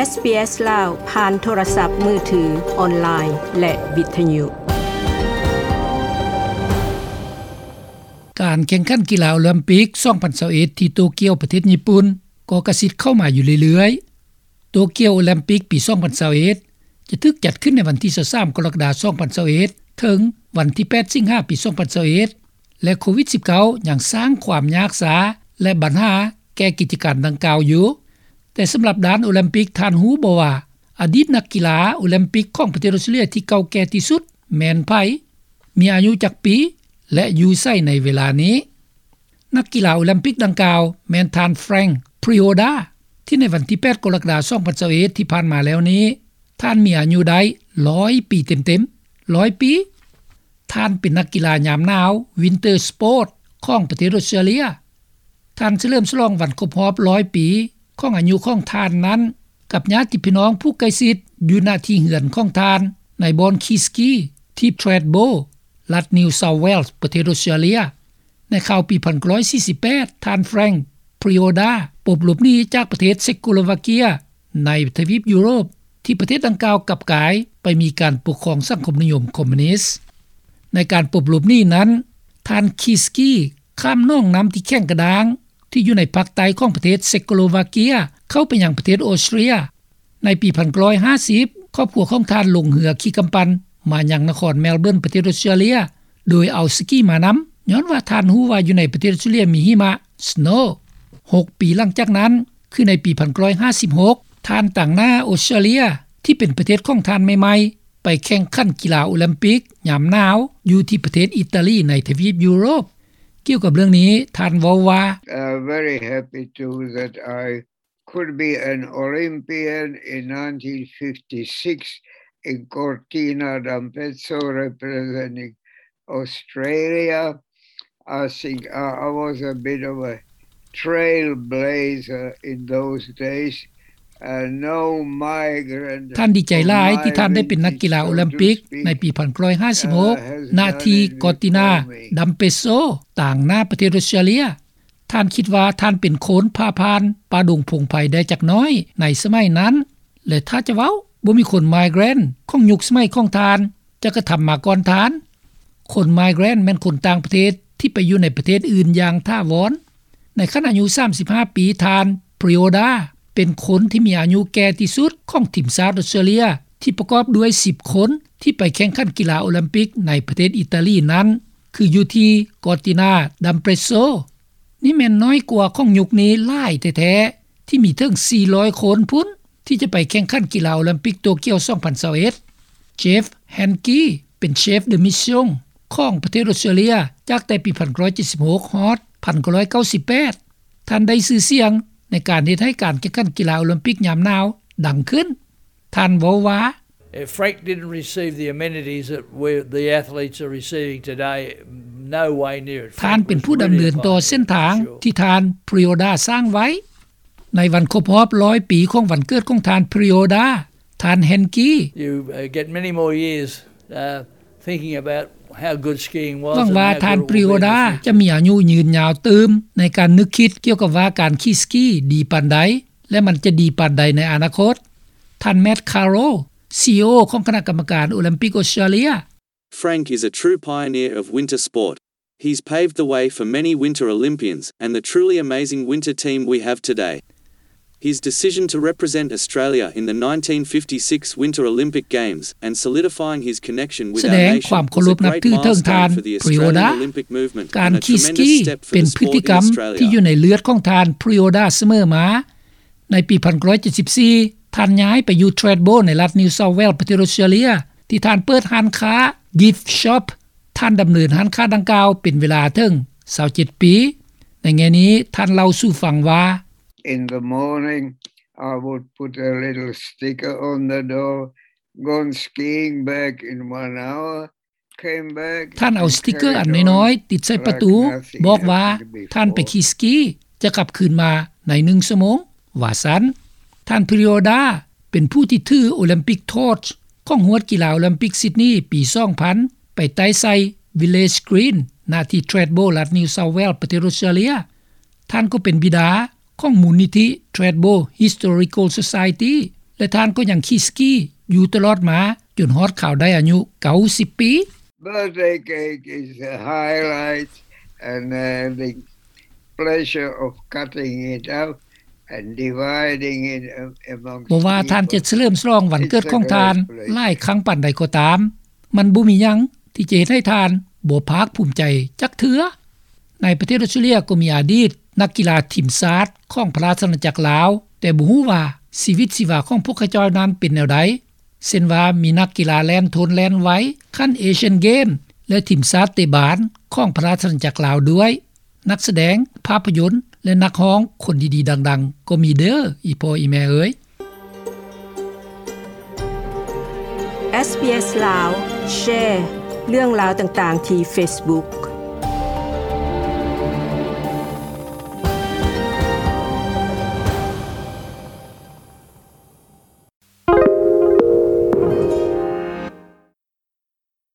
ເອສບີເອສ ລາວ ຜ່ານໂທລະສັບມືຖື, ອອນລາຍ ແລະ ວິທະຍຸ. ການແຂ່ງຂັນກິລາໂອລິມປິກສອງພັນຊາວເອັດ ທີ່ໂຕກຽວ ປະເທດຍີ່ປຸ່ນ ກໍກະຊິດເຂົ້າມາຢູ່ເລື້ອຍໆ. ໂຕກຽວໂອລິມປິກປີສອງພັນຊາວເອັດ ຈະຖືກຈັດຂຶ້ນໃນວັນທີຊາວສາມ ກໍລະກະດາ ສອງພັນຊາວເອັດ ເຖິງວັນທີແປດ ສິງຫາ ປີສອງພັນຊາວເອັດ ແລະ ໂຄວິດສິບເກົ້າ ຍັງສ້າງຄວາມຍາກຊາ ແລະ ບັນຫາແກ່ກິດຈະການດັ່ງກ່າວຢູ່. ແຕ່ສຳລັບດ້ານໂອລິມປິກ, ທ່ານຮູ້ບໍ່ວ່າ ອະດີດນັກກິລາໂອລິມປິກຂອງປະເທດອອສເຕຣເລັຽທີ່ເກົ່າແກ່ທີ່ສຸດແມ່ນໃຜ, ມີອາຍຸຈັກປີ ແລະ ຢູ່ໃສໃນເວລານີ້? ນັກກິລາໂອລິມປິກດັ່ງກ່າວແມ່ນທ່ານ Frank Prioda ທີ່ໃນວັນທີແປດ ກໍລະກະດາ ສອງພັນຊາວເອັດ ທີ່ຜ່ານມາແລ້ວນີ້ ທ່ານມີອາຍຸໄດ້ຮ້ອຍປີເຕັມໆ, ຮ້ອຍປີ. ທ່ານເປັນນັກກິລາຍາມໜາວ Winter Sport ຂອງປະເທດອອສເຕຣເລັຽ. ທ່ານສະເຫຼີມສະຫຼອງວັນຄົບຮອບຮ້ອຍປີຂອງອາຍຸຂອງທ່ານນັ້ນ ກັບຍາດຕິພີ່ນ້ອງຜູ້ໃກ້ຊິດຢູ່ ນະ ທີ່ເຮືອນຂອງທ່ານໃນບ່ອນຂີ່ສະກີທີ່ Thredbo ລັດ New South Wales ປະເທດອອສເຕຣເລັຽ. ໃນຄາວປີພັນເກົ້າຮ້ອຍສີ່ສິບແປດ ທ່ານ Frank Prioda ປົບຫຼົບໜີຈາກປະເທດເຊັກໂກສໂລວາເກຍ ໃນທະວີບຢູໂຣບ ທີ່ປະເທດດັ່ງກ່າວກັບກາຍໄປມີການປົກຄອງສັງຄົມນິຍົມຄອມມູນິດ. ໃນການປົບຫຼົບໜີນັ້ນ, ທ່ານຂີ່ສະກີຂ້າມໜອງນ້ຳທີ່ແຂງກະດ້າງ ທີ່ຢູ່ໃນພາກໃຕ້ຂອງປະເທດເຊັກໂກສໂລວາເກຍ ເຂົ້າໄປຍັງປະເທດອອສເຕຣເລັຽ. ໃນປີພັນເກົ້າຮ້ອຍຫ້າສິບ ຄອບຄົວຂອງທ່ານລົງເຮືອຂີ່ກຳປັ່ນມາຍັງນະຄອນແມລເບີນ ປະເທດອອສເຕຣເລັຽ ໂດຍເອົາສະກີມານຳ, ຍ້ອນວ່າທ່ານຮູ້ວ່າຢູ່ໃນປະເທດອອສເຕຣເລັຽມີຫິມະ snow. ຫົກປີຫຼັງຈາກນັ້ນ, ຄືໃນປີພັນເກົ້າຮ້ອຍຫ້າສິບຫົກ ທ່ານຕາງໜ້າອອສເຕຣເລັຽ ທີ່ເປັນປະເທດຂອງທ່ານໃໝ່ໆ ໄປແຂ່ງຂັນກິລາໂອລິມປິກຍາມໜາວຢູ່ທີ່ປະເທດອີຕາລີໃນທະວີບຢູໂຣບ. ກ່ຽວກັບເລື່ອງນີ້, ທ່ານເວົ້າວ່າ, Uh, very happy too that I could be an Olympian in nineteen fifty-six in Cortina d'Ampezzo representing Australia. I think I, I was a bit of a trailblazer in those days. Uh, no migrant ທ່ານດີໃຈຫຼາຍທີ່ທ່ານໄດ້ເປັນນັກກິລາໂອລິມປິກໃນປີພັນເກົ້າຮ້ອຍຫ້າສິບຫົກ ນະ ທີ່ Cortina d'Ampezzo ຕາງໜ້າປະເທດອອສເຕຣເລັຽ. ທ່ານຄິດວ່າທ່ານເປັນຄົນຜ່າຜ່ານປ່າດົງພົງໄພໄດ້ຈັກໜ້ອຍໃນສະໄໝນັ້ນ ແລະ ຖ້າຈະເວົ້າ, ບໍ່ມີຄົນ migrant ຂອງຍຸກສະໄໝຂອງທ່ານຈະກະທຳມາກ່ອນທ່ານ. ຄົນ migrant ແມ່ນຄົນຕ່າງປະເທດທີ່ໄປຢູ່ໃນປະເທດອື່ນຢ່າງຖາວອນ. ໃນຂັ້ນອາຍຸສາມສິບຫ້າປີ, ທ່ານ Prioda ເປັນຄົນທີ່ມີອາຍຸແກ່ທີ່ສຸດຂອງທີມຊາດອອສເຕຣເລັຽ ທີ່ປະກອບດ້ວຍສິບຄົນທີ່ໄປແຂ່ງຂັນກິລາໂອລິມປິກໃນປະເທດອີຕາລີນັ້ນ ຄືຢູ່ທີ່ Cortina d'Ampezzo. ນີ້ແມ່ນນ້ອຍກວ່າຂອງຍຸກນີ້ຫຼາຍແທ້ໆ ທີ່ມີເຖິງສີ່ຮ້ອຍຄົນພຸ້ນ ທີ່ຈະໄປແຂ່ງຂັນກິລາໂອລິມປິກໂຕກຽວສອງພັນຊາວເອັດ. Jeff Hankey ເປັນ Chef de Mission ຂອງປະເທດອອສເຕຣເລັຽ ຈາກແຕ່ປີພັນເກົ້າຮ້ອຍເຈັດສິບຫົກ ຮອດພັນເກົ້າຮ້ອຍເກົ້າສິບແປດ. ທ່ານໄດ້ຊື່ສຽງໃນການເຮັດໃຫ້ການແຂ່ງຂັນກິລາໂອລິມປິກຍາມໜາວດັງຂຶ້ນ. ທ່ານເວົ້າວ່າ, Uh, Frank didn't receive the amenities that we're, the athletes are receiving today, no way near it. ທ່ານເປັນຜູ້ດຳເນີນຕໍ່ເສັ້ນທາງທີ່ທ່ານ Prioda ສ້າງໄວ້. ໃນວັນຄົບຮອບຮ້ອຍປີຂອງວັນເກີດຂອງທ່ານ Prioda, ທ່ານ Hankey You, uh, get many more years, uh, thinking about how good skiing was ຫວັງວ່າທ່ານ Prioda ຈະມີອາຍຸຍືນຍາວຕື່ມໃນການນຶກຄິດກ່ຽວກັບວ່າການຂີ່ສະກີດີປານໃດ ແລະ ມັນຈະດີປານໃດໃນອະນາຄົດ. ທ່ານ Matt Carroll, ຊີອີໂອ ຂອງຄະນະກຳມະການໂອລິມປິກອອສເຕຣເລັຽ. Frank is a true pioneer of winter sport. He's paved the way for many winter Olympians and the truly amazing winter team we have today. His decision to represent Australia in the nineteen fifty-six Winter Olympic Games and solidifying his connection with our nation was a great milestone for the Australian Olympic movement and a tremendous step for the sport in Australia. ສະແດງຄວາມເຄົາລົບນັບຖືເຖິງທ່ານ Prioda. ການຂີ່ສະກີເປັນພຶດຕິກຳທີ່ຢູ່ໃນເລືອດຂອງທ່ານ Prioda ສະເໝີມາ. ໃນປີພັນເກົ້າຮ້ອຍເຈັດສິບສີ່ ທ່ານຍ້າຍໄປຢູ່ Thredbo ໃນລັດ New South Wales ປະເທດອອສເຕຣເລັຽ ທີ່ທ່ານເປີດຮ້ານຄ້າ Gift Shop. ທ່ານດຳເນີນຮ້ານຄ້າດັ່ງກ່າວເປັນເວລາເຖິງຊາວເຈັດປີ. ໃນແງ່ນີ້ ທ່ານເລົ່າສູ່ຟັງວ່າ, In the morning, I would put a little sticker on the door, gone skiing back in one hour. ທ່ານເອົາສະຕິກເກີອັນນ້ອຍໆຕິດໃສ່ປະຕູ, ບອກວ່າທ່ານໄປຂີ່ສະກີ, ຈະກັບຄືນມາໃນໜຶ່ງຊົ່ວໂມງ, ວ່າຊັ້ນ. ທ່ານ Prioda ເປັນຜູ້ທີ່ຖື Olympic torch ຂອງຮວດກິລາໂອລິມປິກ Sydney ປີສອງພັນ ໄປໄຕ້ໃສ່ Village Green ນະ ທີ່ Thredbo ລັດ New South Wales ປະເທດອອສເຕຣເລັຽ. ທ່ານກໍເປັນບິດາຂອງມູນນິທິ Thredbo Historical Society ແຕ່ທ່ານກໍຍັງຂີ່ສະກີຢູ່ຕະຫຼອດມາ ຈົນຮອດຄາວໄດ້ອາຍຸ 90 ປີ. Birthday cake is a highlight and having pleasure of cutting it out and dividing it amongst ບໍ່ວ່າທ່ານຈະສະເຫຼີມສະຫຼອງວັນເກີດຂອງທ່ານຫຼາຍຄັ້ງປານໃດກໍຕາມ, ມັນບໍ່ມີຫຍັງທີ່ຈະເຮັດໃຫ້ທ່ານບໍ່ພາກພູມໃຈຈັກເທື່ອ. ໃນປະເທດອອສເຕຣເລັຽກໍມີອະດີດນັກກິລາທີມຊາດຂອງພະລາຊະອານາຈັກລາວ, ແຕ່ບໍ່ຮູ້ວ່າຊີວິດຊີວາຂອງພວກເຂົາເຈົ້ານັ້ນເປັນແນວໃດ, ເຊັ່ນວ່າມີນັກກິລາແລ່ນທົນແລ່ນໄວຂັ້ນເອຊຽນເກມ ແລະ ທີມຊາດເຕະບານຂອງພະລາຊະອານາຈັກລາວດ້ວຍ. ນັກສະແດງພາບພະຍົນ ແລະ ນັກຮ້ອງຄົນດີໆດັງໆກໍມີເດີ້ ອີ່ພໍ່ອີ່ແມ່ເອີຍ. ເອສບີເອສ ລາວ ແຊເລື່ອງລາວຕ່າງໆທີ່ເຟສບຸກ